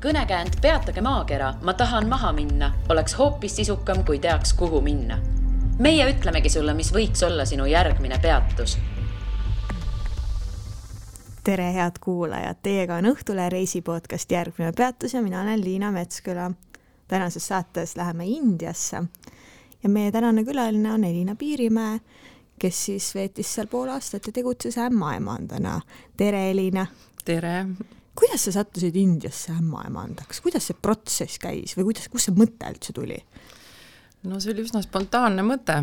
Kõnekäänd peatage maakera, ma tahan maha minna, oleks hoopis sisukam, kui teaks, kuhu minna. Meie ütlemegi sulle, mis võiks olla sinu järgmine peatus. Tere, head kuulajad! Teiega on Õhtule reisipodcast Järgmine peatus ja mina olen Liina Metsküla. Tänases saates läheme Indiasse ja meie tänane külaline on Elina Piirimäe, kes siis veetis seal pool aastat ja tegutses ämmaemandana. Tere, Elina! Tere! Kuidas sa sattusid Indiasse ämmaemandaks? Kuidas see protsess käis või kus see mõte üldse tuli? No see oli üsna spontaanne mõte.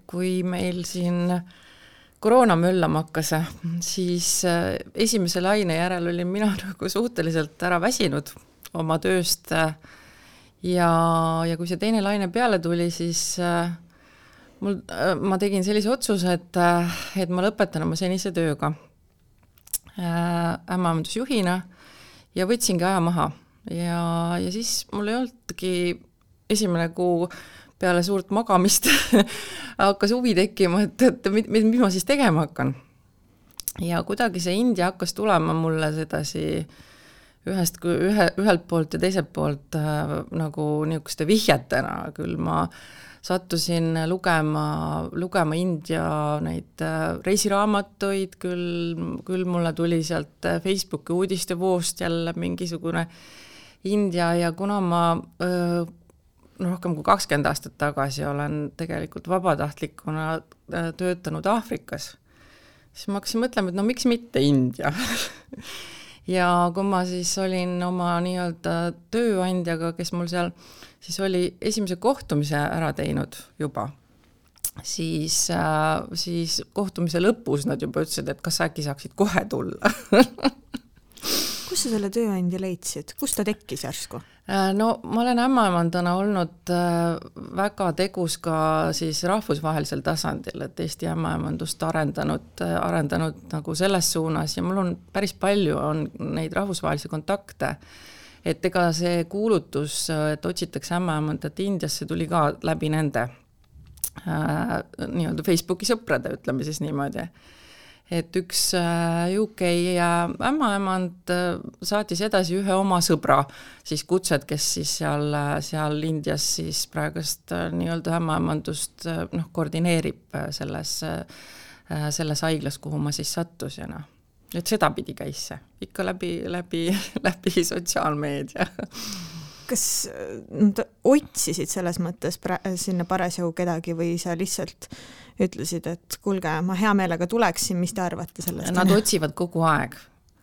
Kui meil siin koroona möllama hakkas, siis esimese laine järel olin mina nagu suhteliselt ära väsinud oma tööst ja kui see teine laine peale tuli, siis ma tegin sellise otsuse, et ma lõpetan oma senise tööga ämmaemandusjuhina ja võtsingi aja maha ja siis mul ei olnudki esimene kuu peale suurt magamist hakkas huvi tekkima, et mis ma siis tegema hakkan. Ja kuidagi see India hakkas tulema mulle sedasi ühelt poolt ja teiselt poolt nagu niisuguste vihjetena. Küll ma sattusin lugema India neid reisiraamatuid, küll mulle tuli sealt Facebooki uudistevoost jälle mingisugune India ja kuna ma rohkem kui 20 aastat tagasi olen tegelikult vabatahtlikuna töötanud Aafrikas, siis ma hakkasin mõtlema, et no miks mitte India. Ja kui ma siis olin oma nii-öelda tööandjaga, kes mul seal siis oli esimese kohtumise ära teinud juba, siis kohtumise lõpus nad juba ütlesid, et kas äkki saaksid kohe tulla. Kus sa selle tööandja leidsid? Kus ta tekkis järsku? No ma olen ämmaemandana olnud väga tegus ka siis rahvusvahelisel tasandil, et Eesti ämmaemandust arendanud nagu selles suunas ja mul on päris palju on neid rahvusvahelisi kontakte, et ega see kuulutus, et otsitakse ämmaemandat Indiasse tuli ka läbi nende nii-öelda Facebooki sõprade, ütleme siis niimoodi. Et üks UK ämmaemand saatis edasi ühe oma sõbra siis kutset, kes siis seal Indias siis praegust nii-öelda ämmaemandust koordineerib selles haiglas, kuhu ma siis sattusin. Et seda pidi käis see, ikka läbi sotsiaalmeedia. Kas otsisid selles mõttes sinna parasjagu kedagi või sa lihtsalt ütlesid, et kuulge, ma hea meelega tuleksin, mis te arvate sellest? Nad otsivad kogu aeg.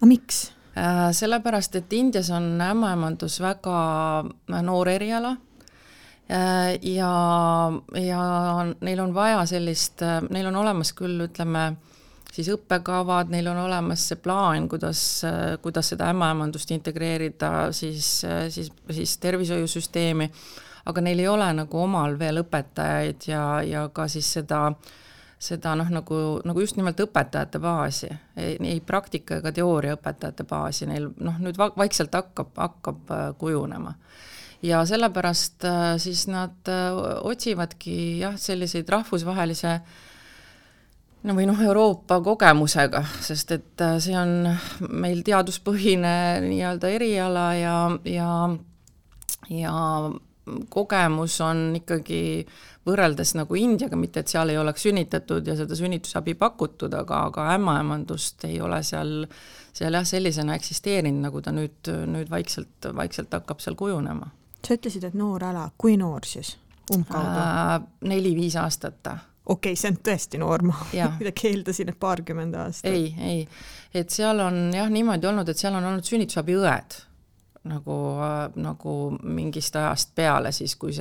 A miks? Sellepärast, et Indias on ämmaemandus väga noor eriala ja neil on vaja sellist, neil on olemas küll, ütleme, siis õppekavad, neil on olemas see plaan, kuidas seda ämmaemandust integreerida siis tervishoiusüsteemi, aga neil ei ole nagu omal veel õpetajaid ja ka siis seda nagu just nimelt õpetajate baasi, ei praktika ega teooria õpetajate baasi, neil nüüd vaikselt hakkab kujunema. Ja sellepärast siis nad otsivadki selliseid rahvusvahelise või Euroopa kogemusega, sest et see on meil teaduspõhine nii-öelda eriala ja kogemus on ikkagi võrreldes nagu Indiaga, mitte et seal ei oleks sünnitatud ja seda sünnitusabi pakutud, aga ämmaemandust ei ole seal sellisena eksisteerinud, nagu ta nüüd vaikselt hakkab seal kujunema. Sa ütlesid, et noor ala, kui noor siis? 4-5 aastat. Okei, see on tõesti noor, ma keeldasin, et 20 aastat. Ei, et seal on niimoodi olnud, et seal on olnud sünnitusabi õed nagu mingist ajast peale siis, kui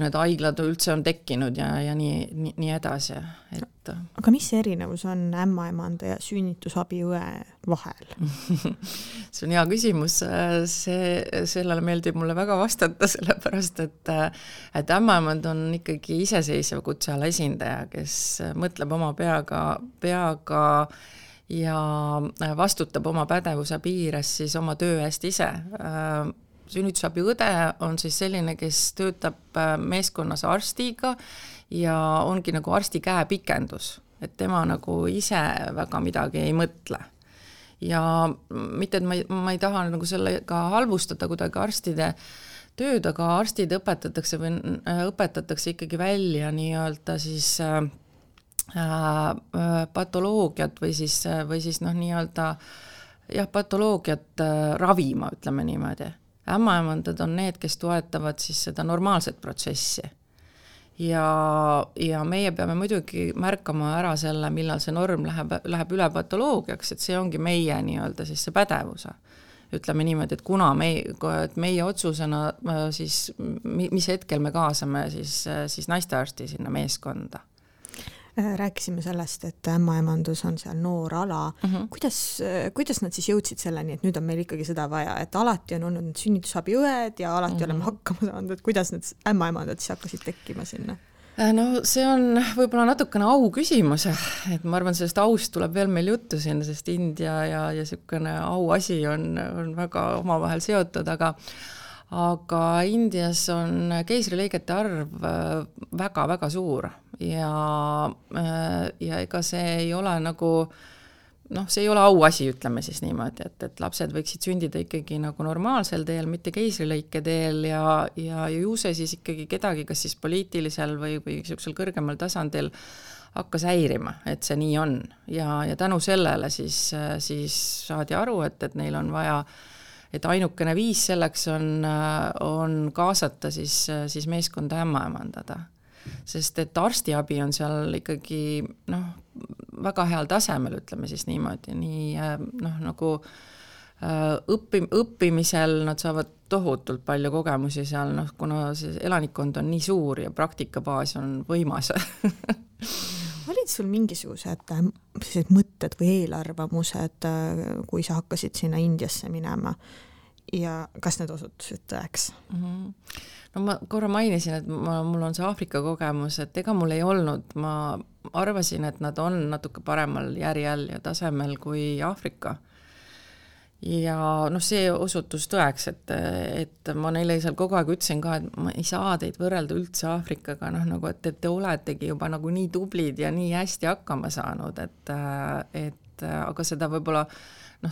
need haiglad üldse on tekkinud ja nii edasi. Aga mis erinevus on ämmaemanda ja sünnitusabi õe vahel? See on hea küsimus. Sellele meeldib mulle väga vastata, sellepärast, et ämmaemand on ikkagi iseseisev kutseala esindaja, kes mõtleb oma peaga ja vastutab oma pädevuse piires siis oma töö eest ise. Sünnitusabi õde on siis selline, kes töötab meeskonnas arstiga ja ongi nagu arsti käepikendus, et tema nagu ise väga midagi ei mõtle. ja mitte, et ma ei taha nagu sellega halvustada kuidagi arstide tööd, aga arstid õpetatakse ikkagi välja nii-öelda siis patoloogiat või siis nii-öelda patoloogiat ravima, ütleme niimoodi. Ämmaemandad on need, kes toetavad siis seda normaalset protsessi. Ja meie peame muidugi märkama ära selle, millal see norm läheb üle patoloogiaks, et see ongi meie nii-öelda siis see pädevuse. Ütleme niimoodi, et kuna meie otsusena siis, mis hetkel me kaasame siis naistearsti sinna meeskonda. Rääkisime sellest, et ämmaemandus on seal noor ala. Kuidas nad siis jõudsid selleni, et nüüd on meil ikkagi seda vaja, et alati on olnud sünnitusabiõed ja alati oleme hakkama saanud, et kuidas need ämmaemandad siis hakkasid tekkima sinna? No see on võib-olla natukene au küsimus, et ma arvan, sellest aust tuleb veel meil juttu sinna, sest India ja selline au asi on väga omavahel seotud, aga Indias on keisrilõigete arv väga-väga suur ja ega see ei ole nagu, see ei ole auasi, ütleme siis niimoodi, et lapsed võiksid sündida ikkagi nagu normaalsel teel, mitte keisrilõike teel ja ju see siis ikkagi kedagi, kas siis poliitilisel või sellisel kõrgemal tasandil hakkas häirima, et see nii on ja tänu sellele siis saadi aru, et neil on vaja, et ainukene viis selleks on kaasata siis meeskonda ämmaemandada. Sest et arstiabi on seal ikkagi väga heal tasemel, ütleme siis niimoodi, nagu õppimisel nad saavad tohutult palju kogemusi seal, kuna see elanikkond on nii suur ja praktikabaas on võimas. Olid sul mingisugused mõtted või eelarvamused, kui sa hakkasid sinna Indiasse minema ja kas need osutusid tõeks? No ma korra mainisin, et mul on see Aafrika kogemus, et ega mul ei olnud, ma arvasin, et nad on natuke paremal järjel ja tasemel kui Aafrika. Ja see osutus tõeks, et ma neile seal kogu aeg ütlesin ka, et ma ei saa teid võrrelda üldse Aafrikaga, nagu et te oletegi juba nagu nii tublid ja nii hästi hakkama saanud, et aga seda võib-olla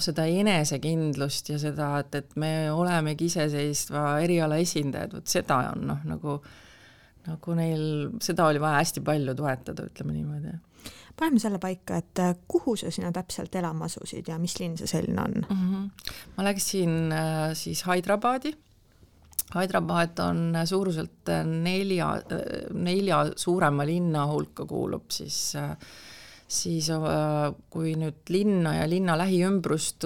seda enesekindlust ja seda, et me olemegi iseseistva eriala esindajad, seda on nagu neil, seda oli vaja hästi palju toetada, ütleme niimoodi. Paneme selle paika, et kuhu sa sina täpselt elama asusid ja mis linn see selline on? Ma läksin siis Hyderabadi. Hyderabad on suuruselt 4 suurema linna hulka kuulub siis kui nüüd linna ja linna lähiümbrust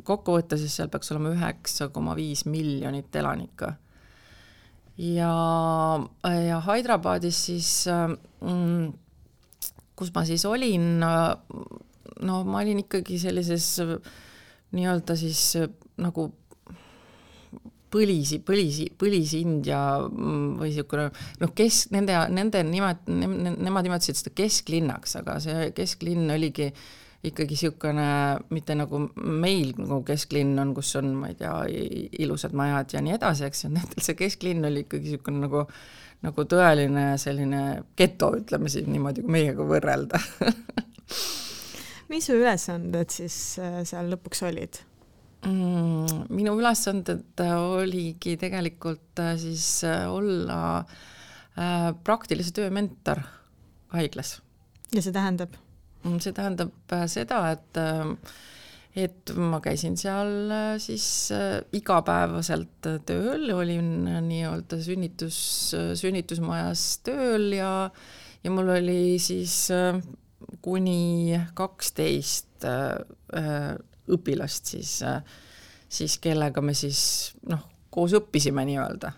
kokku võtta, siis seal peaks olema 9,5 miljonit elanikku. Ja Hyderabadis siis, kus ma siis olin, ma olin ikkagi sellises nii-öelda siis nagu põlis India või siukene, nemad nimetasid seda kesklinnaks, aga see kesklinn oligi ikkagi siukene, mitte nagu meil nagu kesklinn on, kus on, ma ei tea, ilusad majad ja nii edasi, eks see kesklinn oli ikkagi siukene nagu tõeline selline geto, ütleme siis niimoodi, kui meiega võrrelda. Mis su ülesanded siis seal lõpuks olid? Minu ülesanded oligi tegelikult siis olla praktilise töö mentor haiglas. Ja see tähendab? See tähendab seda, et ma käisin seal siis igapäevaselt tööl, olin nii-öelda sünnitusmajas tööl ja mul oli siis kuni 12 õpilast siis kellega me siis koos õppisime nii-öelda.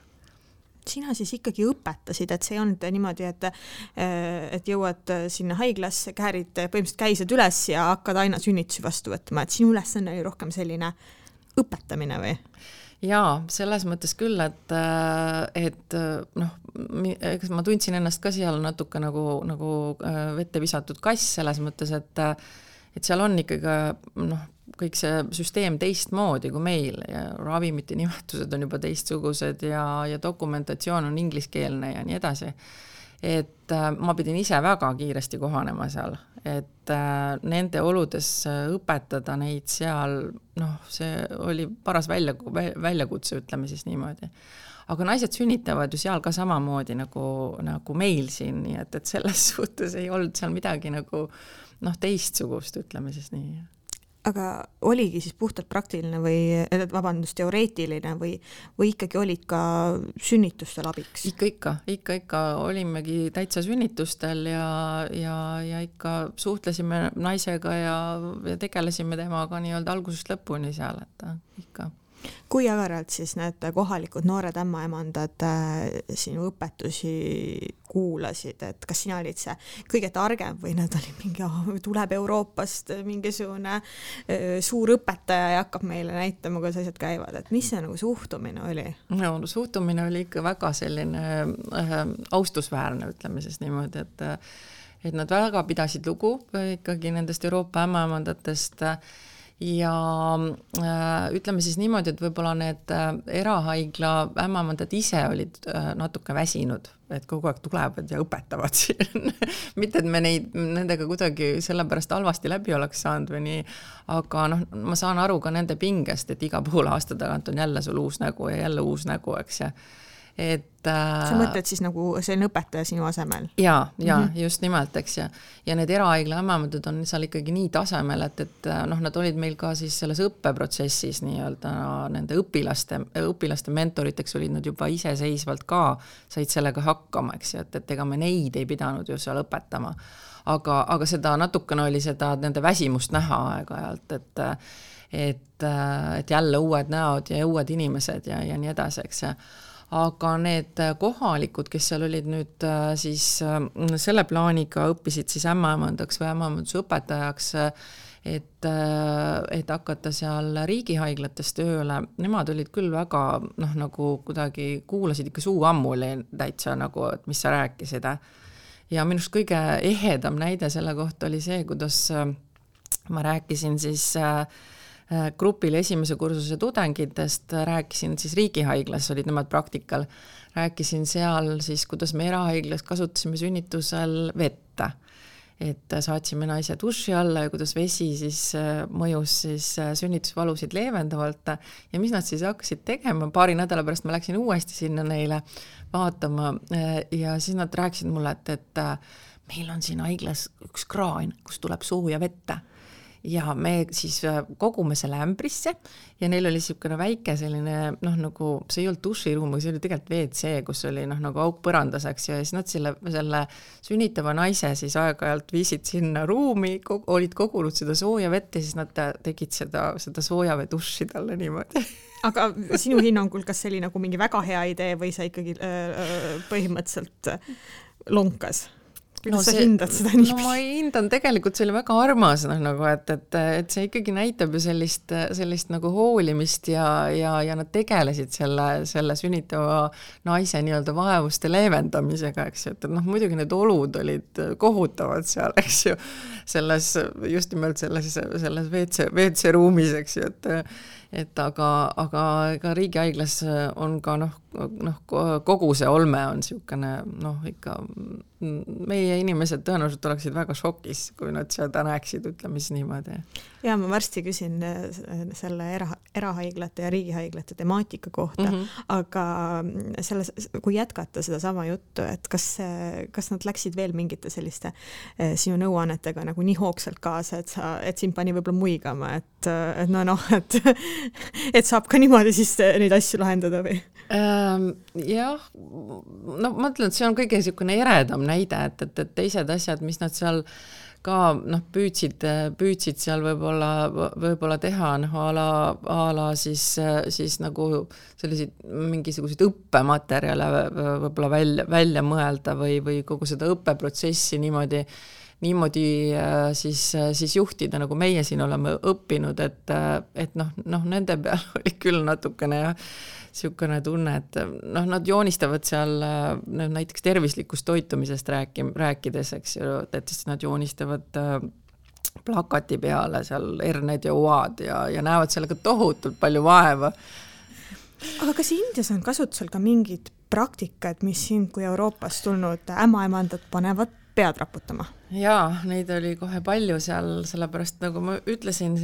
Sina siis ikkagi õpetasid, et see ei olnud niimoodi, et jõuad sinna haiglasse, käärid põhimõtteliselt käised üles ja hakkad aina sünnitusi vastu võtma, et sinu ülesanne oli rohkem selline õpetamine või? Jaa, selles mõttes küll, et ma tundsin ennast ka seal natuke nagu vette visatud kass selles mõttes, et seal on ikkagi kõik see süsteem teistmoodi kui meil ja ravimite nimetused on juba teistsugused ja dokumentatsioon on ingliskeelne ja nii edasi. et ma pidin ise väga kiiresti kohanema seal, et nende oludes õpetada neid seal, noh, see oli paras väljakutse, ütleme siis niimoodi. Aga naised sünnitavad ju seal ka samamoodi nagu meil siin, nii et selles suhtes ei olnud seal midagi nagu teistsugust, ütleme siis nii. Aga oligi siis puhtalt praktiline teoreetiline või ikkagi olid ka sünnitustel abiks? Ikka olimegi täitsa sünnitustel ja ikka suhtlesime naisega ja tegelesime temaga nii-öelda algusest lõpuni seal, et ikka. Kui agaralt siis need kohalikud noored ämmaemandad sinu õpetusi kuulasid, et kas sina olid see kõige targem või nad oli mingi, tuleb Euroopast mingisugune suur õpetaja ja hakkab meile näitama, kuidas asjad käivad, et mis see nagu suhtumine oli? No, suhtumine oli ikka väga selline austusväärne, ütleme siis niimoodi, et nad väga pidasid lugu ikkagi nendest Euroopa ämmaemandatest ja ütleme siis niimoodi, et võib-olla need erahaigla ämmaemandad ise olid natuke väsinud, et kogu aeg tulevad ja õpetavad siin. Mitte, et me nendega kuidagi sellepärast halvasti läbi oleks saanud või nii, aga ma saan aru ka nende pingest, et iga poole aasta tagant on jälle sul uus nägu ja jälle uus nägu, eks ja sa mõtled siis nagu selline õpetaja sinu asemel? Ja, just nimelt, eks ja need erahaigla ämmaemandad on seal ikkagi nii tasemel, et nad olid meil ka siis selles õppeprotsessis nii-öelda nende õpilaste mentoriteks olid nad juba iseseisvalt ka, said sellega hakkama, eks et ega me neid ei pidanud ju seal õpetama. Aga seda natukene oli seda nende väsimust näha aeg-ajalt, et jälle uued näod ja uued inimesed ja nii edasi, eks aga need kohalikud, kes seal olid nüüd siis selle plaaniga õppisid siis ämmaemandaks või ämmaemanduse õpetajaks, et hakata seal riigihaiglates tööle, nemad olid küll väga, nagu kuidagi kuulasid ikka suu ammuli täitsa nagu, et mis sa rääkisid. Ja minust kõige ehedam näide selle kohta oli see, kuidas ma rääkisin siis grupile esimese kursuse tudengitest, rääkisin siis riigihaiglas, olid nemad praktikal, rääkisin seal siis, kuidas me erahaiglas kasutasime sünnitusel vette, et saatsime naise duši alla ja kuidas vesi siis mõjus siis sünnitusvalusid leevendavalt ja mis nad siis hakkasid tegema, paari nädala pärast ma läksin uuesti sinna neile vaatama ja siis nad rääkisid mulle, et meil on siin haiglas üks kraan, kus tuleb sooja vette. Ja me siis kogume selle ämbrisse ja neil oli niisugune väike selline, nagu see ei olnud duširuum, see oli tegelikult WC, kus oli nagu auk põrandaseks ja siis nad selle sünnitava naise siis aeg-ajalt viisid sinna ruumi, olid kogunud seda sooja vett ja siis nad tegid seda soojavee duši talle niimoodi. Aga sinu hinnangul, kas see oli nagu mingi väga hea idee või sa ikkagi põhimõtteliselt lonkas? Kuidas sa hindad seda nii? No ma hindan tegelikult, see oli väga armas, et see ikkagi näitab ju sellist nagu hoolimist ja nad tegelesid selle sünnitava naise nii-öelda vaevuste leevendamisega, eks ju, et muidugi need olud olid kohutavad seal, eks ju, just nimelt selles WC ruumis, eks ju, aga riigihaiglas on ka kogu see olme on niisugune ikka meie inimesed tõenäoliselt oleksid väga šokis, kui nad seda näeksid, ütleme siis niimoodi. Ja ma varsti küsin selle erahaiglate ja riigihaiglate temaatika kohta, aga kui jätkata seda sama juttu, et kas nad läksid veel mingite selliste sinu nõuannetega nagu nii hoogsalt kaasa, et sind pani võib-olla muigama, et saab ka niimoodi siis neid asju lahendada või? Jah, ma ütlen, et see on kõige niisugune eredam näide, et teised asjad, mis nad seal ka püüdsid seal võib-olla teha, a la siis nagu selliseid mingisuguseid õppematerjale võib-olla välja mõelda või kogu seda õppeprotsessi niimoodi siis juhtida, nagu meie siin oleme õppinud, et nende peal oli küll natukene niisugune tunne, et nad joonistavad seal näiteks tervislikust toitumisest rääkides, eks ju, et siis nad joonistavad plakati peale seal herned ja oad ja näevad sellega tohutult palju vaeva. Aga kas Indias on kasutusel ka mingid praktikad, mis sind kui Euroopast tulnud ämmaemandat panevad pead raputama? Jaa, neid oli kohe palju seal, sellepärast nagu ma ütlesin,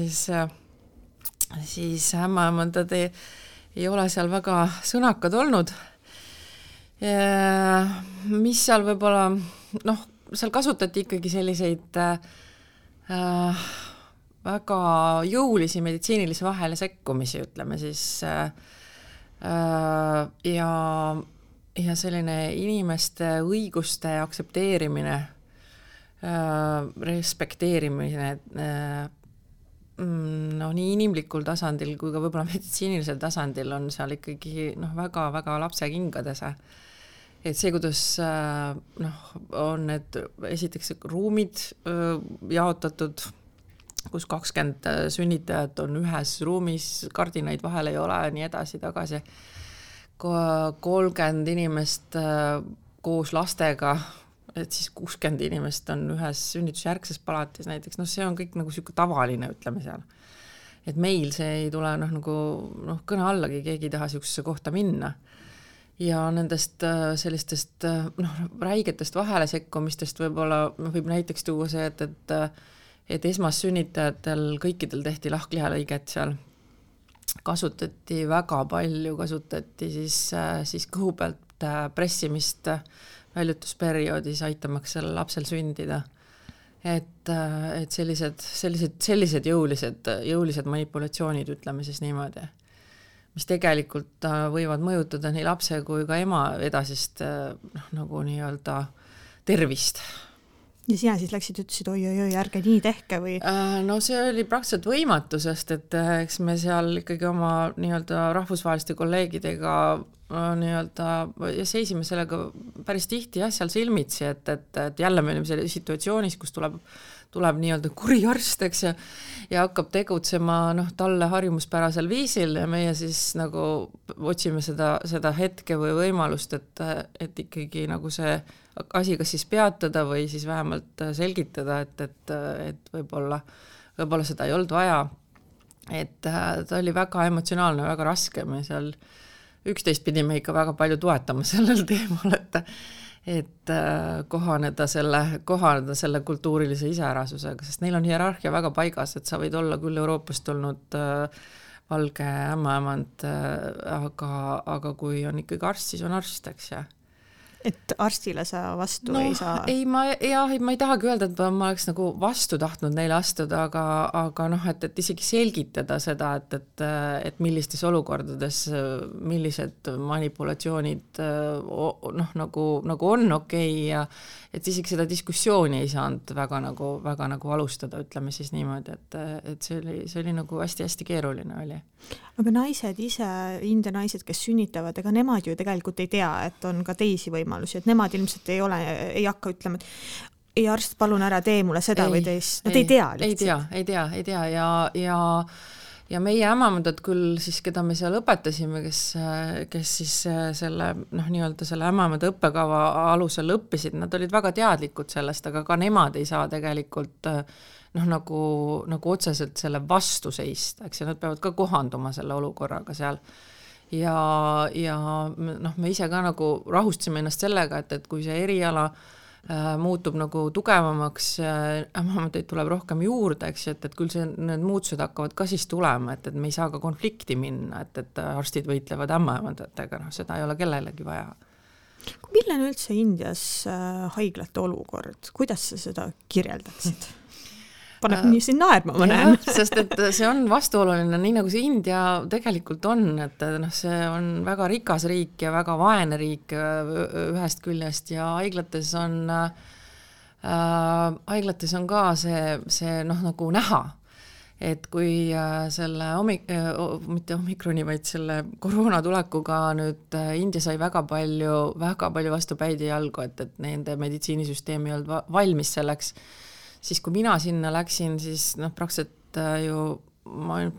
siis ämmaemandad ei ole seal väga sõnakad olnud. Mis seal võib-olla, seal kasutati ikkagi selliseid väga jõulisi meditsiinilisi vahele sekkumisi, ütleme siis, ja selline inimeste õiguste aktsepteerimine, respekteerimine, nii inimlikul tasandil kui ka võib-olla meditsiinilisel tasandil on seal ikkagi väga-väga lapsekingades. Et see, kuidas on need esiteks ruumid jaotatud, kus 20 sünnitajat on ühes ruumis, kardinaid vahel ei ole, nii edasi, tagasi. 30 inimest koos lastega, et siis 60 inimest on ühes sünnitusjärgses palatis näiteks, see on kõik nagu selline tavaline, ütleme seal. Et meil see ei tule kõne allagi, keegi ei taha sellisesse kohta minna. Ja nendest sellistest räigetest vahele sekkumistest võib-olla võib näiteks tuua see, et esmassünnitajatel kõikidel tehti lahklihalõiget seal. Kasutati väga palju, siis kõhu pealt pressimist väljutusperioodis aitamaks selle lapsel sündida. Et sellised jõulised manipulatsioonid, ütleme siis niimoodi, mis tegelikult võivad mõjutada nii lapse kui ka ema edasist nagu nii-öelda tervist. Ja sina siis läksid, ütlesid, oi, ärge nii tehke või? See oli praktiliselt võimatu, sest et eks me seal ikkagi oma nii-öelda rahvusvaheliste kolleegidega ja seisime sellega päris tihti seal silmitsi, et jälle me olime selle situatsioonis, kus tuleb nii-öelda kuri arst, eks, ja hakkab tegutsema talle harjumuspärasel viisil ja meie siis nagu otsime seda hetke või võimalust, et ikkagi nagu see asi kas siis peatada või siis vähemalt selgitada, et võib-olla seda ei olnud vaja. Et ta oli väga emotsionaalne, väga raske, me seal üksteist pidime ikka väga palju toetama sellel teemal, et kohaneda selle kultuurilise iseärasusega, sest neil on hierarhia väga paigas, et sa võid olla küll Euroopast tulnud valge ämmaemand, aga kui on ikkagi arst, siis on arst, eks ja. Et arstile sa vastu ei saa? Ma ei tahagi öelda, et ma oleks nagu vastu tahtnud neile astuda, aga et isegi selgitada seda, et millistes olukordades, millised manipulatsioonid nagu on okei ja et isegi seda diskussiooni ei saanud väga nagu alustada, ütleme siis niimoodi, et see oli nagu hästi-hästi keeruline oli. Aga naised ise, India naised, kes sünnitavad, ega nemad ju tegelikult ei tea, et on ka teisi võimalusi, et nemad ilmselt ei hakka ütlema, et ei arst, palun ära tee mulle seda või teist. Nad ei tea lihtsalt. Ei tea ja meie ämmaemandad küll siis, keda me seal õpetasime, kes siis selle nii-öelda selle ämmaemanda õppekava alusel õppisid, nad olid väga teadlikud sellest, aga ka nemad ei saa tegelikult nagu otseselt selle vastu seista, eks ja nad peavad ka kohanduma selle olukorraga seal. Ja me ise ka nagu rahustasime ennast sellega, et kui see eriala muutub nagu tugevamaks, ämmaemandaid tuleb rohkem juurde, eks, et küll need muutused hakkavad ka siis tulema, et me ei saa ka konflikti minna, et arstid võitlevad ämmaemandatega, seda ei ole kellelegi vaja. Milline üldse Indias haiglate olukord? Kuidas sa seda kirjeldaksid? Paneb nii siin naerma, ma näen. Sest et see on vastuoluline, nii nagu see India tegelikult on, et see on väga rikas riik ja väga vaene riik ühest küljest ja haiglates on ka see nagu näha, et kui selle mitte omikroni, vaid selle koroona tulekuga nüüd India sai väga palju vastu päid ja jalgu, et nende meditsiinisüsteem ei olnud valmis selleks. Siis kui mina sinna läksin, siis praktiliselt ju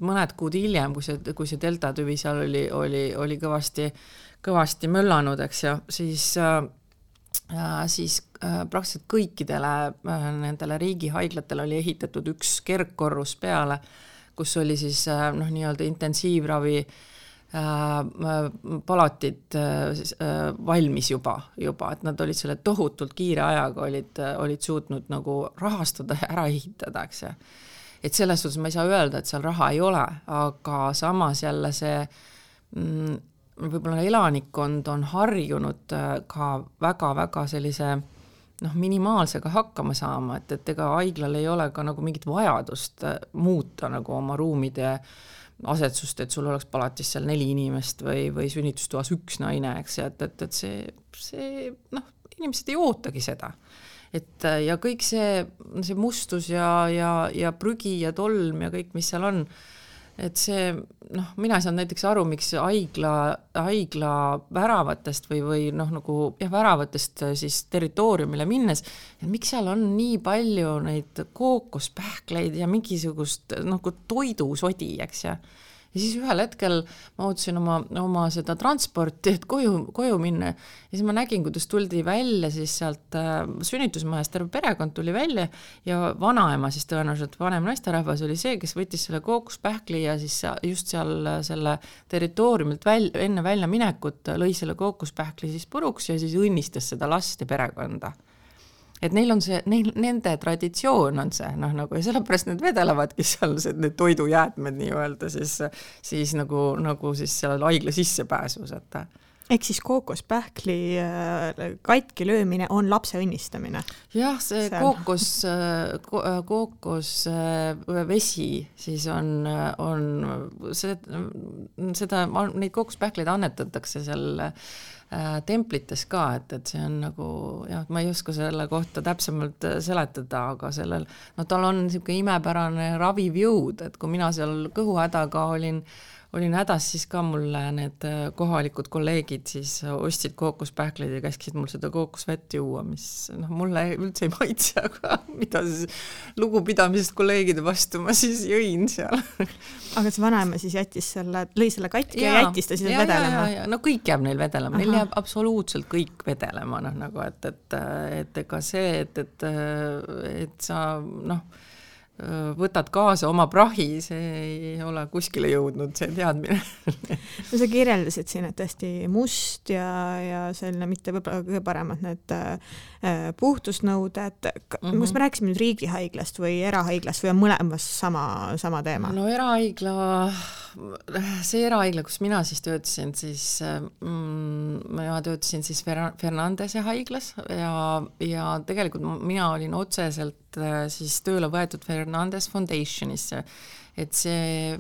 mõned kuud hiljem, kui see delta tüvi seal oli kõvasti möllanud, eks ja siis praktiliselt kõikidele nendele riigihaiglatele oli ehitatud üks kergkorrus peale, kus oli siis nii-öelda intensiivravi palatid valmis juba, et nad olid selle tohutult kiire ajaga olid suutnud nagu rahastada ja ära ehitada, eks ja. Et selles suhtes ma ei saa öelda, et seal raha ei ole, aga samas jälle see võib-olla elanikkond on harjunud ka väga-väga sellise minimaalsega hakkama saama, et ega haiglal ei ole ka nagu mingit vajadust muuta nagu oma ruumide asetsust, et sul oleks palatis seal 4 inimest või sünnitustoas 1 naine, eks, et see inimesed ei ootagi seda. Ja kõik see mustus ja prügi ja tolm ja kõik, mis seal on, et see, mina ei saanud näiteks aru, miks haigla väravatest või nagu väravatest siis territooriumile minnes, et miks seal on nii palju neid kookospähkleid ja mingisugust nagu toidusodi, eks ja siis ühel hetkel ma ootasin oma seda transporti, et koju minna ja siis ma nägin, kuidas tuldi välja siis sealt sünnitusmajast, terve perekond tuli välja ja vanaema siis tõenäoliselt vanem naisterahvas oli see, kes võttis selle kookospähkli ja siis just seal selle territooriumilt enne välja minekut lõi selle kookospähkli siis puruks ja siis õnnistas seda last ja perekonda. Et neil on nende traditsioon on see, nagu, ja sellepärast need vedelevadki seal need toidujäätmed nii öelda siis nagu siis seal haigla sissepääsus, et ehk siis kookospähkli katki löömine on lapse õnnistamine. Jah, see kookosvesi siis on seda, neid kookospähkleid annetatakse seal templites ka, et see on nagu, jah, ma ei oska selle kohta täpsemalt seletada, aga sellel, tal on niisugune imepärane raviv jõud, et kui mina seal kõhuhädaga olin hädas, siis ka mulle need kohalikud kolleegid siis ostsid kookospähkleid ja käskisid mul seda kookosvett juua, mis mulle üldse ei maitse, aga mida siis lugupidamisest kolleegide vastu ma siis jõin seal. Aga see vanaema siis lõi selle katki ja jättis ta siis vedelema? No kõik jääb neil vedelema, neil jääb absoluutselt kõik vedelema, nagu, et ega see, et sa, võtad kaasa oma prahi, see ei ole kuskile jõudnud, see teadmine. No sa kirjeldasid siin, et tõesti must ja selline mitte võib-olla kõige paremad need puhtusnõuded. Kas me rääkisime nüüd riigihaiglast või erahaiglast või on mõlemas sama teema? No see erahaigla, kus mina siis töötasin, siis ma töötasin siis Fernandese haiglas ja tegelikult mina olin otseselt siis tööle võetud Fernandes Foundationisse, et see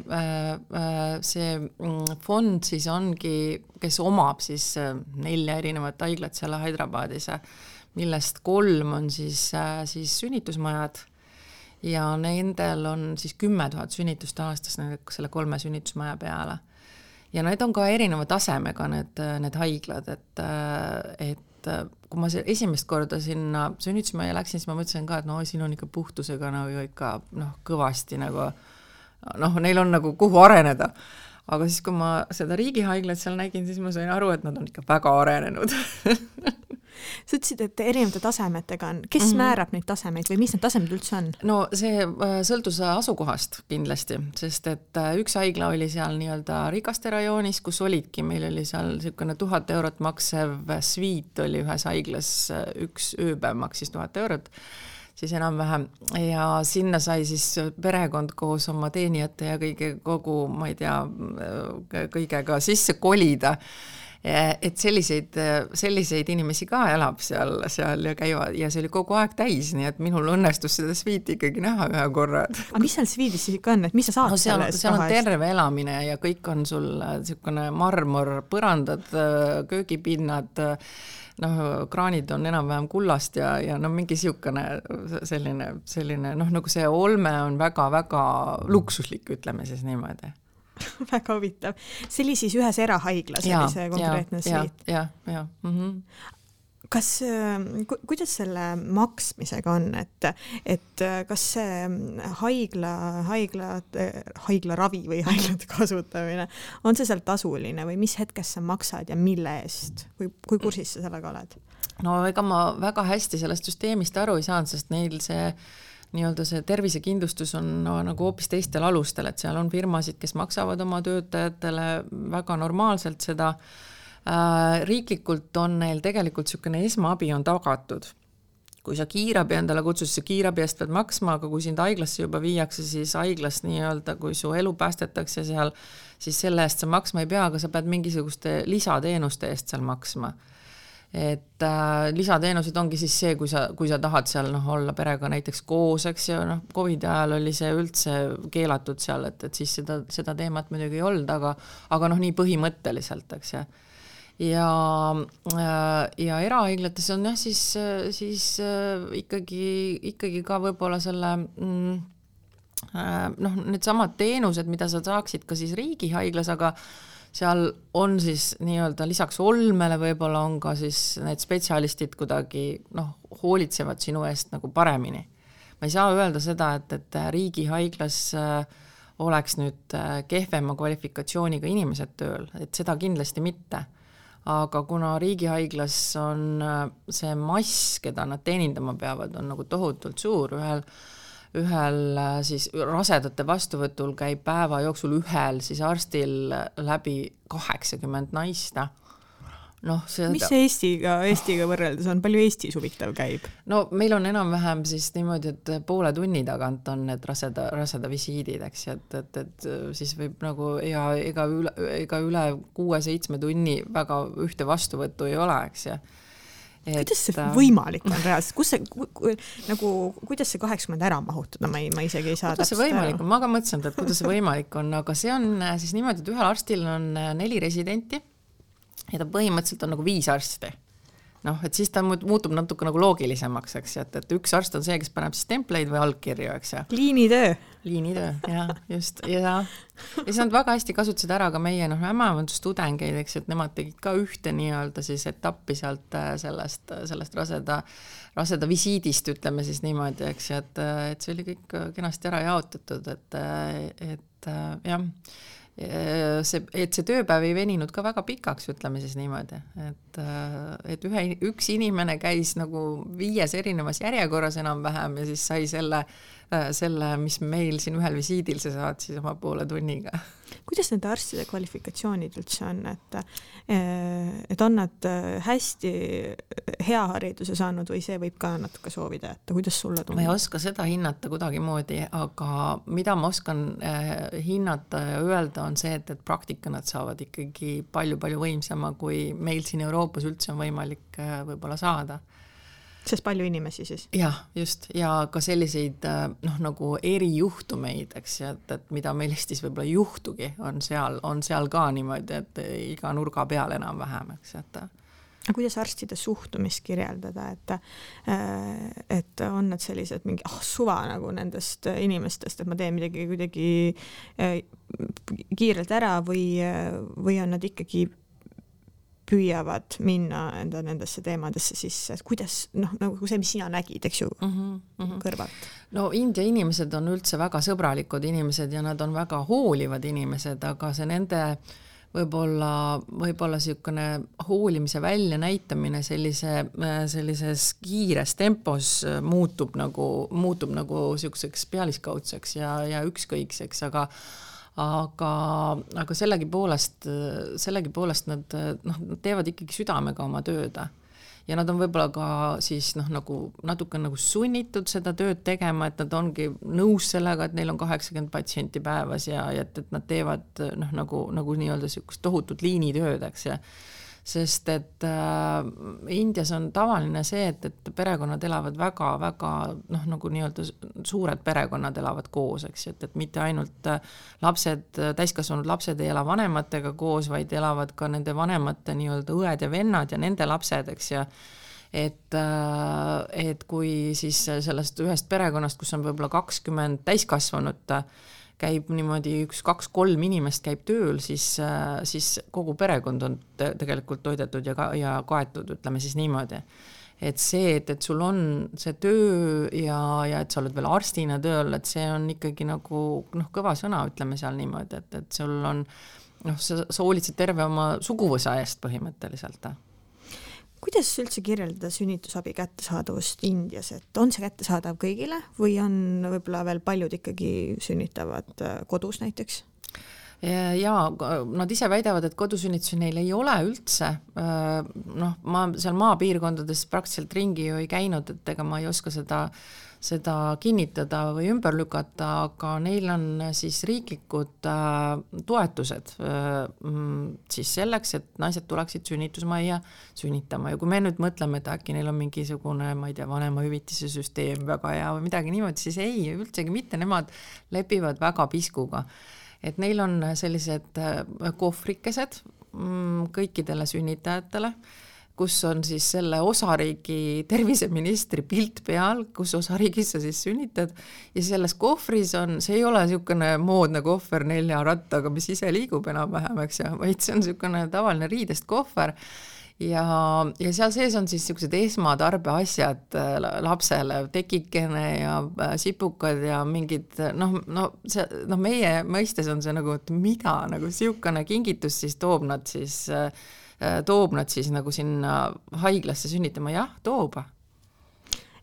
fond siis ongi, kes omab siis 4 erinevat haiglat seal Hyderabadis, millest 3 on siis sünnitusmajad ja nendel on siis 10 000 sünnitust aastas selle 3 sünnitusmaja peale. Ja need on ka erineva tasemega need haiglad, et kui ma esimest korda sinna sünnitusmaja läksin, siis ma mõtlesin ka, et siin on ikka puhtusega ikka kõvasti neil on nagu kuhu areneda. Aga siis, kui ma seda riigihaiglat seal nägin, siis ma sain aru, et nad on ikka väga arenenud. Sa ütlesid, et erinevate tasemetega on. Kes määrab neid tasemeid või mis need tasemed üldse on? No see sõltus asukohast kindlasti, sest et üks haigla oli seal nii-öelda Rikaste rajoonis, kus olidki, meil oli seal 1000 eurot maksev sviit oli ühes haiglas, üks ööpäev maksis 1000 eurot, siis enam-vähem. Ja sinna sai siis perekond koos oma teenijate ja kogu, ma ei tea, kõigega sisse kolida. Et selliseid inimesi ka elab seal ja käivad ja see oli kogu aeg täis, nii et minul õnnestus seda sviiti ikkagi näha ühe korra. Aga mis seal sviidis siis ikka on, et mis sa saad sellest? Seal on terve elamine ja kõik on sul niisugune marmor, põrandad, köögipinnad, kraanid on enam-vähem kullast ja mingi niisugune selline, nagu see olme on väga-väga luksuslik, ütleme siis niimoodi. Väga huvitav. See oli siis ühes erahaiglas, oli see konkreetne sviit. Ja. Kas, kuidas selle maksmisega on, et kas see haigla ravi või haiglate kasutamine, on see seal tasuline või mis hetkest sa maksad ja mille eest? Kui kursis sa sellega oled? No ega ma väga hästi sellest süsteemist aru ei saanud, sest neil see nii-öelda see tervisekindlustus on nagu hoopis teistel alustel, et seal on firmasid, kes maksavad oma töötajatele väga normaalselt seda. Riiklikult on neil tegelikult niisugune esmaabi on tagatud. Kui sa kiirabi endale kutsus, see kiirabi eest pead maksma, aga kui sind haiglasse juba viiakse, siis haiglas nii-öelda, kui su elu päästetakse seal, siis selle eest sa maksma ei pea, aga sa pead mingisuguste lisateenuste eest seal maksma. Et lisateenused ongi siis see, kui sa tahad seal olla perega näiteks koos, eks ja COVID ajal oli see üldse keelatud seal, et siis seda teemat muidugi ei olnud, aga nii põhimõtteliselt, eks ja. Ja erahaiglates on siis ikkagi ka võib-olla selle need samad teenused, mida sa saaksid ka siis riigihaiglas, aga seal on siis nii-öelda lisaks olmele võib-olla on ka siis need spetsialistid kuidagi hoolitsevad sinu eest nagu paremini. Ma ei saa öelda seda, et riigihaiglas oleks nüüd kehvema kvalifikatsiooniga inimesed tööl, et seda kindlasti mitte. Aga kuna riigihaiglas on see mass, keda nad teenindama peavad, on nagu tohutult suur, ühel siis rasedate vastuvõtul käib päeva jooksul ühel siis arstil läbi 80 naista. Mis see Eestiga võrreldes on? Palju Eestis huvitav käib? No meil on enam-vähem siis niimoodi, et poole tunni tagant on need raseda visiidid, eks, et siis võib nagu ega üle 6-7 tunni väga ühte vastuvõttu ei ole, eks ja. Kuidas see võimalik on reaalselt? Kuidas see 80 ära mahutada? Ma isegi ei saa täpselt see võimalik on? Ma ka mõtlesin, et kuidas see võimalik on, aga see on siis niimoodi, et ühel arstil on 4 residenti ja ta põhimõtteliselt on nagu 5 arsti. Et siis ta muutub natuke nagu loogilisemaks, eks, et üks arst on see, kes paneb siis templeid või allkirju, eks. Liinitöö, jah, just. Ja siis nad väga hästi kasutasid ära ka meie ämmaevandustudengeid, eks, et nemad tegid ka ühte nii-öelda siis etappi sealt sellest raseda visiidist, ütleme siis niimoodi, eks, et see oli kõik kenasti ära jaotatud, et jah, et see tööpäev ei veninud ka väga pikaks, ütleme siis niimoodi, et üks inimene käis nagu 5 erinevas järjekorras enam-vähem ja siis sai selle, mis meil siin ühel visiidil see saad siis oma poole tunniga. Kuidas nende arstide kvalifikatsioonid üldse on, et on nad hästi hea hariduse saanud või see võib ka natuke soovida, et kuidas sulle tundub? Ma ei oska seda hinnata kuidagi moodi, aga mida ma oskan hinnata ja öelda on see, et praktika nad saavad ikkagi palju-palju võimsama, kui meil siin Euroopas üldse on võimalik võib-olla saada. Sest palju inimesi siis? Jah, just. Ja ka selliseid nagu erijuhtumeid, eks, et mida meil Eestis võib-olla juhtugi, on seal ka niimoodi, et iga nurga peal enam-vähem, eks, et kuidas arstide suhtumist kirjeldada, et on nad sellised mingi suva nagu nendest inimestest, et ma teen midagi kuidagi kiirelt ära või on nad ikkagi püüavad minna nendesse teemadesse sisse, et kuidas, nagu see, mis sina nägid, eks ju, kõrvalt? No India inimesed on üldse väga sõbralikud inimesed ja nad on väga hoolivad inimesed, aga see nende võib-olla niisugune hoolimise välja näitamine sellises kiires tempos muutub nagu niisuguseks pealiskaudseks ja ükskõikseks, aga sellegipoolest nad teevad ikkagi südamega oma tööd ja nad on võib-olla ka siis nagu natuke nagu sunnitud seda tööd tegema, et nad ongi nõus sellega, et neil on 80 patsienti päevas ja et nad teevad nagu nii-öelda niisugust tohutut liinitööd, eks ja sest et Indias on tavaline see, et perekonnad elavad väga-väga nagu nii-öelda suured perekonnad elavad koos, eks, et mitte ainult täiskasvanud lapsed ei ela vanematega koos, vaid elavad ka nende vanemate nii-öelda õed ja vennad ja nende lapsed, eks ja et kui siis sellest ühest perekonnast, kus on võib-olla 20 täiskasvanut, käib niimoodi 1-2-3 inimest käib tööl, siis kogu perekond on tegelikult toidetud ja kaetud, ütleme siis niimoodi. Et see, et sul on see töö ja et sa oled veel arstina tööl, et see on ikkagi nagu kõva sõna, ütleme seal niimoodi, et sul on, sa hoolitsed terve oma suguvõsa eest põhimõtteliselt. Kuidas üldse kirjeldada sünnitusabi kättesaadavust Indias, et on see kättesaadav kõigile või on võib-olla veel paljud ikkagi sünnitavad kodus näiteks? Jaa, nad ise väidavad, et kodusünnitusi neil ei ole üldse. Ma seal maapiirkondades praktiliselt ringi ju ei käinud, et ega ma ei oska seda kinnitada või ümber lükata, aga neil on siis riiklikud toetused siis selleks, et naised tuleksid sünnitusmajja sünnitama. Ja kui me nüüd mõtleme, et äkki neil on mingisugune, ma ei tea, vanemahüvitise süsteem väga hea või midagi niimoodi, siis ei, üldsegi mitte, nemad lepivad väga piskuga. Et neil on sellised kohvrikesed kõikidele sünnitajatele, kus on siis selle osariigi terviseministri pilt peal, kus osariigis sa siis sünnitad ja selles kohvris on, see ei ole niisugune moodne kohver 4 rattaga, mis ise liigub enam-vähem, eks, vaid see on niisugune tavaline riidest kohver ja seal sees on siis niisugused esmatarbeasjad lapsele, tekikene ja sipukad ja mingid, meie mõistes on see nagu, et mida, nagu niisugune kingitus siis toob nad siis nagu sinna haiglasse sünnitama, jah, toob.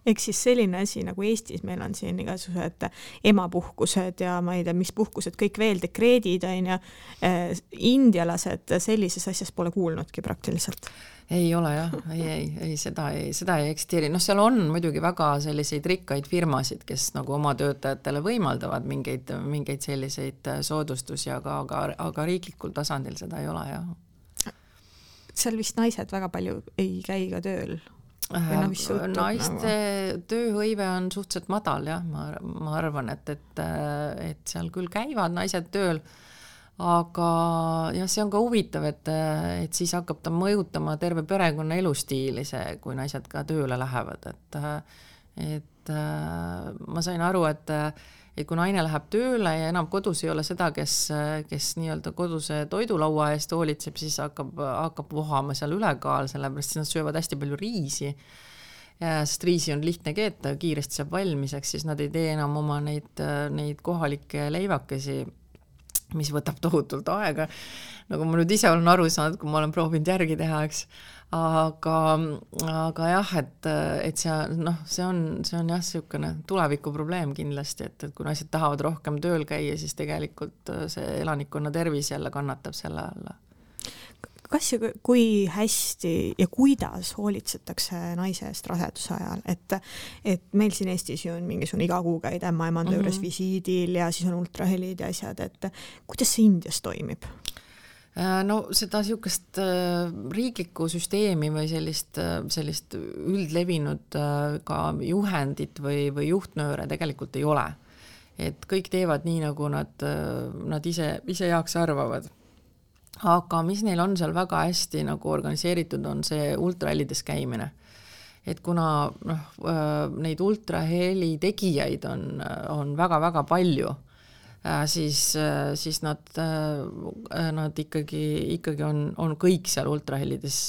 Ehk siis selline asi nagu Eestis, meil on siin igasugused emapuhkused ja ma ei tea, mis puhkused, kõik veel dekreedid on ja indialased sellises asjas pole kuulnudki praktiliselt. Ei ole jah, ei, seda ei eksisteeri. Seal on muidugi väga selliseid rikkaid firmasid, kes nagu oma töötajatele võimaldavad mingeid selliseid soodustusi, aga riiklikul tasandil seda ei ole jah. Seal vist naised väga palju ei käi ka tööl. Naiste tööhõive on suhteliselt madal jah, ma arvan, et seal küll käivad naised tööl, aga jah, see on ka huvitav, et siis hakkab ta mõjutama terve perekonna elustiili see, kui naised ka tööle lähevad, et ma sain aru, et kui naine läheb tööle ja enam kodus ei ole seda, kes nii-öelda koduse toidulaua eest hoolitseb, siis hakkab vohama seal ülekaal, sellepärast nad söövad hästi palju riisi, sest riisi on lihtne keeta, kiiresti saab valmiseks, siis nad ei tee enam oma neid kohalikke leivakesi, mis võtab tohutult aega, nagu ma nüüd ise olen aru saanud, kui ma olen proovinud järgi teha, eks. Aga jah, et see on jah niisugune tuleviku probleem kindlasti, et kui naised tahavad rohkem tööl käia, siis tegelikult see elanikkonna tervis jälle kannatab selle alla. Kas ja kui hästi ja kuidas hoolitsetakse naise eest raseduse ajal, et meil siin Eestis ju on mingisugune iga kuu käid ämmaemanda juures visiidil ja siis on ultrahelid ja asjad, et kuidas see Indias toimib? Seda niisugust riiklikku süsteemi või sellist üldlevinud ka juhendit või juhtnööre tegelikult ei ole. Et kõik teevad nii, nagu nad ise heaks arvavad. Aga mis neil on seal väga hästi nagu organiseeritud, on see ultrahellides käimine. Et kuna neid ultraheli tegijaid on väga-väga palju, siis nad ikkagi on kõik seal ultrahellides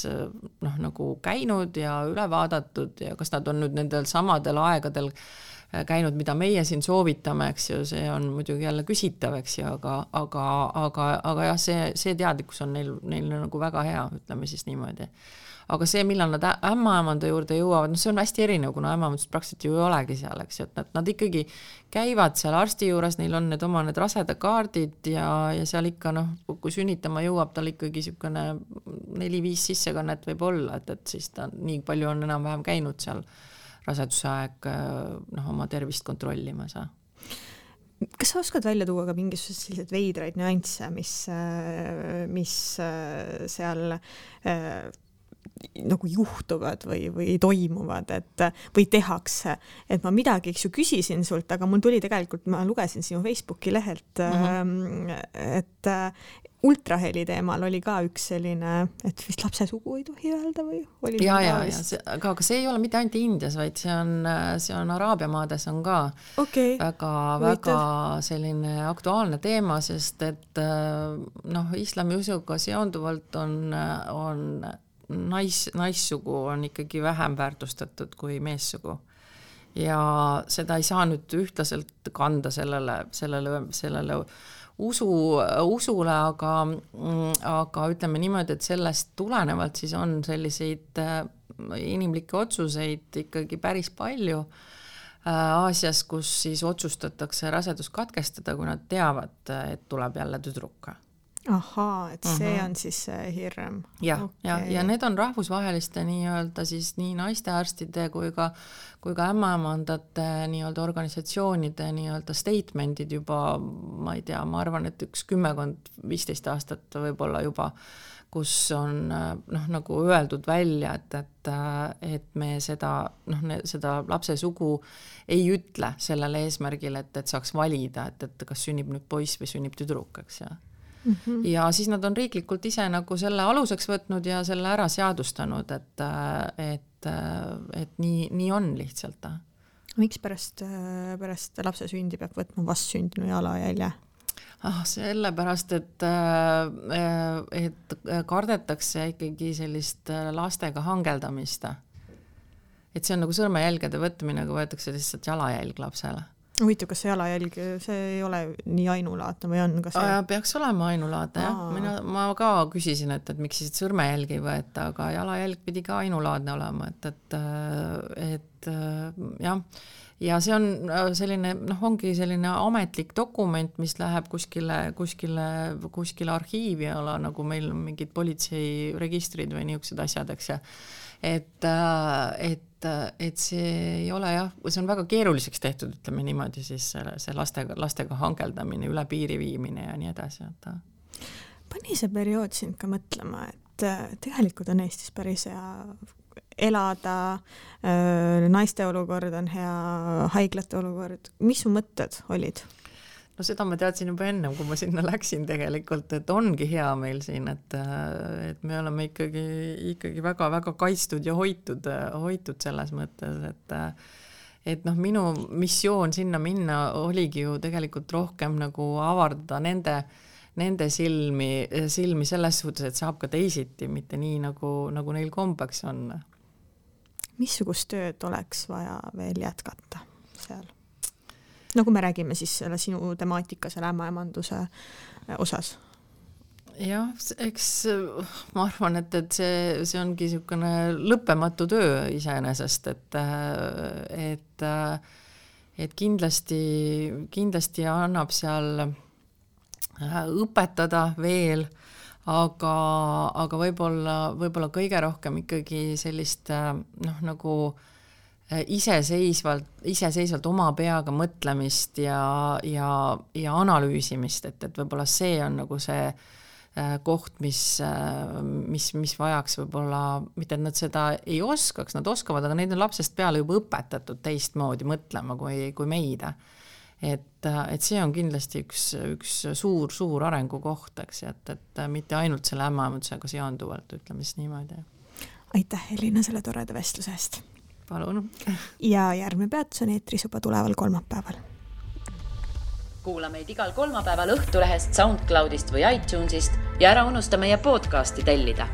nagu käinud ja üle vaadatud ja kas nad on nüüd nendel samadel aegadel käinud, mida meie siin soovitame, eks ju, see on muidugi jälle küsitav, eks ju, aga jah, see teadlikkus on neil nagu väga hea, ütleme siis niimoodi. Aga see, millal nad ämmaemanda juurde jõuavad, see on hästi erinev, kuna ämmaemandust praktiliselt ju ei olegi seal, eks ju, et nad ikkagi käivad seal arsti juures, neil on need rasedakaardid ja seal ikka, kui sünnitama jõuab, tal ikkagi niisugune 4-5 sissekannet võib olla, et siis ta nii palju on enam-vähem käinud seal raseduse aeg oma tervist kontrollimas. Kas sa oskad välja tuua ka mingisugused sellised veidraid nüansse, mis seal nagu juhtuvad või toimuvad, või tehakse, et ma midagi küsisin sult, aga mul tuli tegelikult, ma lugesin sinu Facebooki lehelt, et ultraheli teemal oli ka üks selline, et vist lapse sugu ei tohi öelda või? Aga see ei ole mitte ainult Indias, vaid see on Araabia maades on ka väga selline aktuaalne teema, sest et islami usuga seonduvalt on naissugu on ikkagi vähem väärtustatud kui meessugu. ja seda ei saa nüüd ühtlaselt kanda sellele usule, aga ütleme niimoodi, et sellest tulenevalt siis on selliseid inimlikke otsuseid ikkagi päris palju Aasias, kus siis otsustatakse rasedus katkestada, kui nad teavad, et tuleb jälle tüdruk. Ahaa, et see on siis hirm. Ja need on rahvusvaheliste nii-öelda siis nii naistearstide kui ka ämmaemandate nii-öelda organisatsioonide nii-öelda statementid juba, ma ei tea, ma arvan, et 10-15 aastat võib-olla juba, kus on nagu öeldud välja, et me seda lapse sugu ei ütle sellele eesmärgil, et saaks valida, et kas sünnib nüüd poiss või sünnib tüdruk, eks ja. Ja siis nad on riiklikult ise nagu selle aluseks võtnud ja selle ära seadustanud, et nii on lihtsalt. Miks pärast lapse sündi peab võtma vastsündinu jalajälje? Sellepärast, et kardetakse ikkagi sellist lastega hangeldamist. Et see on nagu sõrmejälgede võtmine, kui võetakse lihtsalt jalajälg lapsele. Huvitav, kas see jalajälg, see ei ole nii ainulaadne või on? Peaks olema ainulaadne, jah. Ma ka küsisin, et miks siis sõrmejälg ei võeta, aga jalajälg pidi ka ainulaadne olema, et jah. Ja see on selline, ongi selline ametlik dokument, mis läheb kuskile arhiivi ala, nagu meil on mingid politseiregistrid või niisugused asjad, eks ja. Et see ei ole jah, see on väga keeruliseks tehtud, ütleme niimoodi siis see lastega hangeldamine, üle piiri viimine ja nii edasi. Pani see periood sind ka mõtlema, et tegelikult on Eestis päris hea elada, naiste olukord on hea, haiglate olukord. Mis su mõtted olid? No seda ma teadsin juba ennem, kui ma sinna läksin tegelikult, et ongi hea meil siin, et me oleme ikkagi väga-väga kaitstud ja hoitud selles mõttes, et minu missioon sinna minna oligi ju tegelikult rohkem nagu avardada nende silmi selles suhtes, et saab ka teisiti, mitte nii nagu neil kombeks on. Missugust tööd oleks vaja veel jätkata seal? No kui me räägime siis selle sinu temaatika selle ämmaemanduse osas. Jah, eks ma arvan, et see ongi niisugune lõppematu töö iseenesest, et kindlasti annab seal õpetada veel, aga võib-olla kõige rohkem ikkagi sellist nagu iseseisvalt oma peaga mõtlemist ja analüüsimist, et võib-olla see on nagu see koht, mis vajaks võib-olla, mitte et nad seda ei oskaks, nad oskavad, aga neid on lapsest peale juba õpetatud teistmoodi mõtlema kui meid. Et see on kindlasti üks suur arengukoht, eks, et mitte ainult selle ämmaemandusega seonduvalt, ütleme siis niimoodi. Aitäh, Elina, selle toreda vestluse eest. Palun. Ja järgmine peatus on eetris juba tuleval kolmapäeval. Kuula meid igal kolmapäeval Õhtulehest, SoundCloudist või iTunesist ja ära unusta meie podcasti tellida.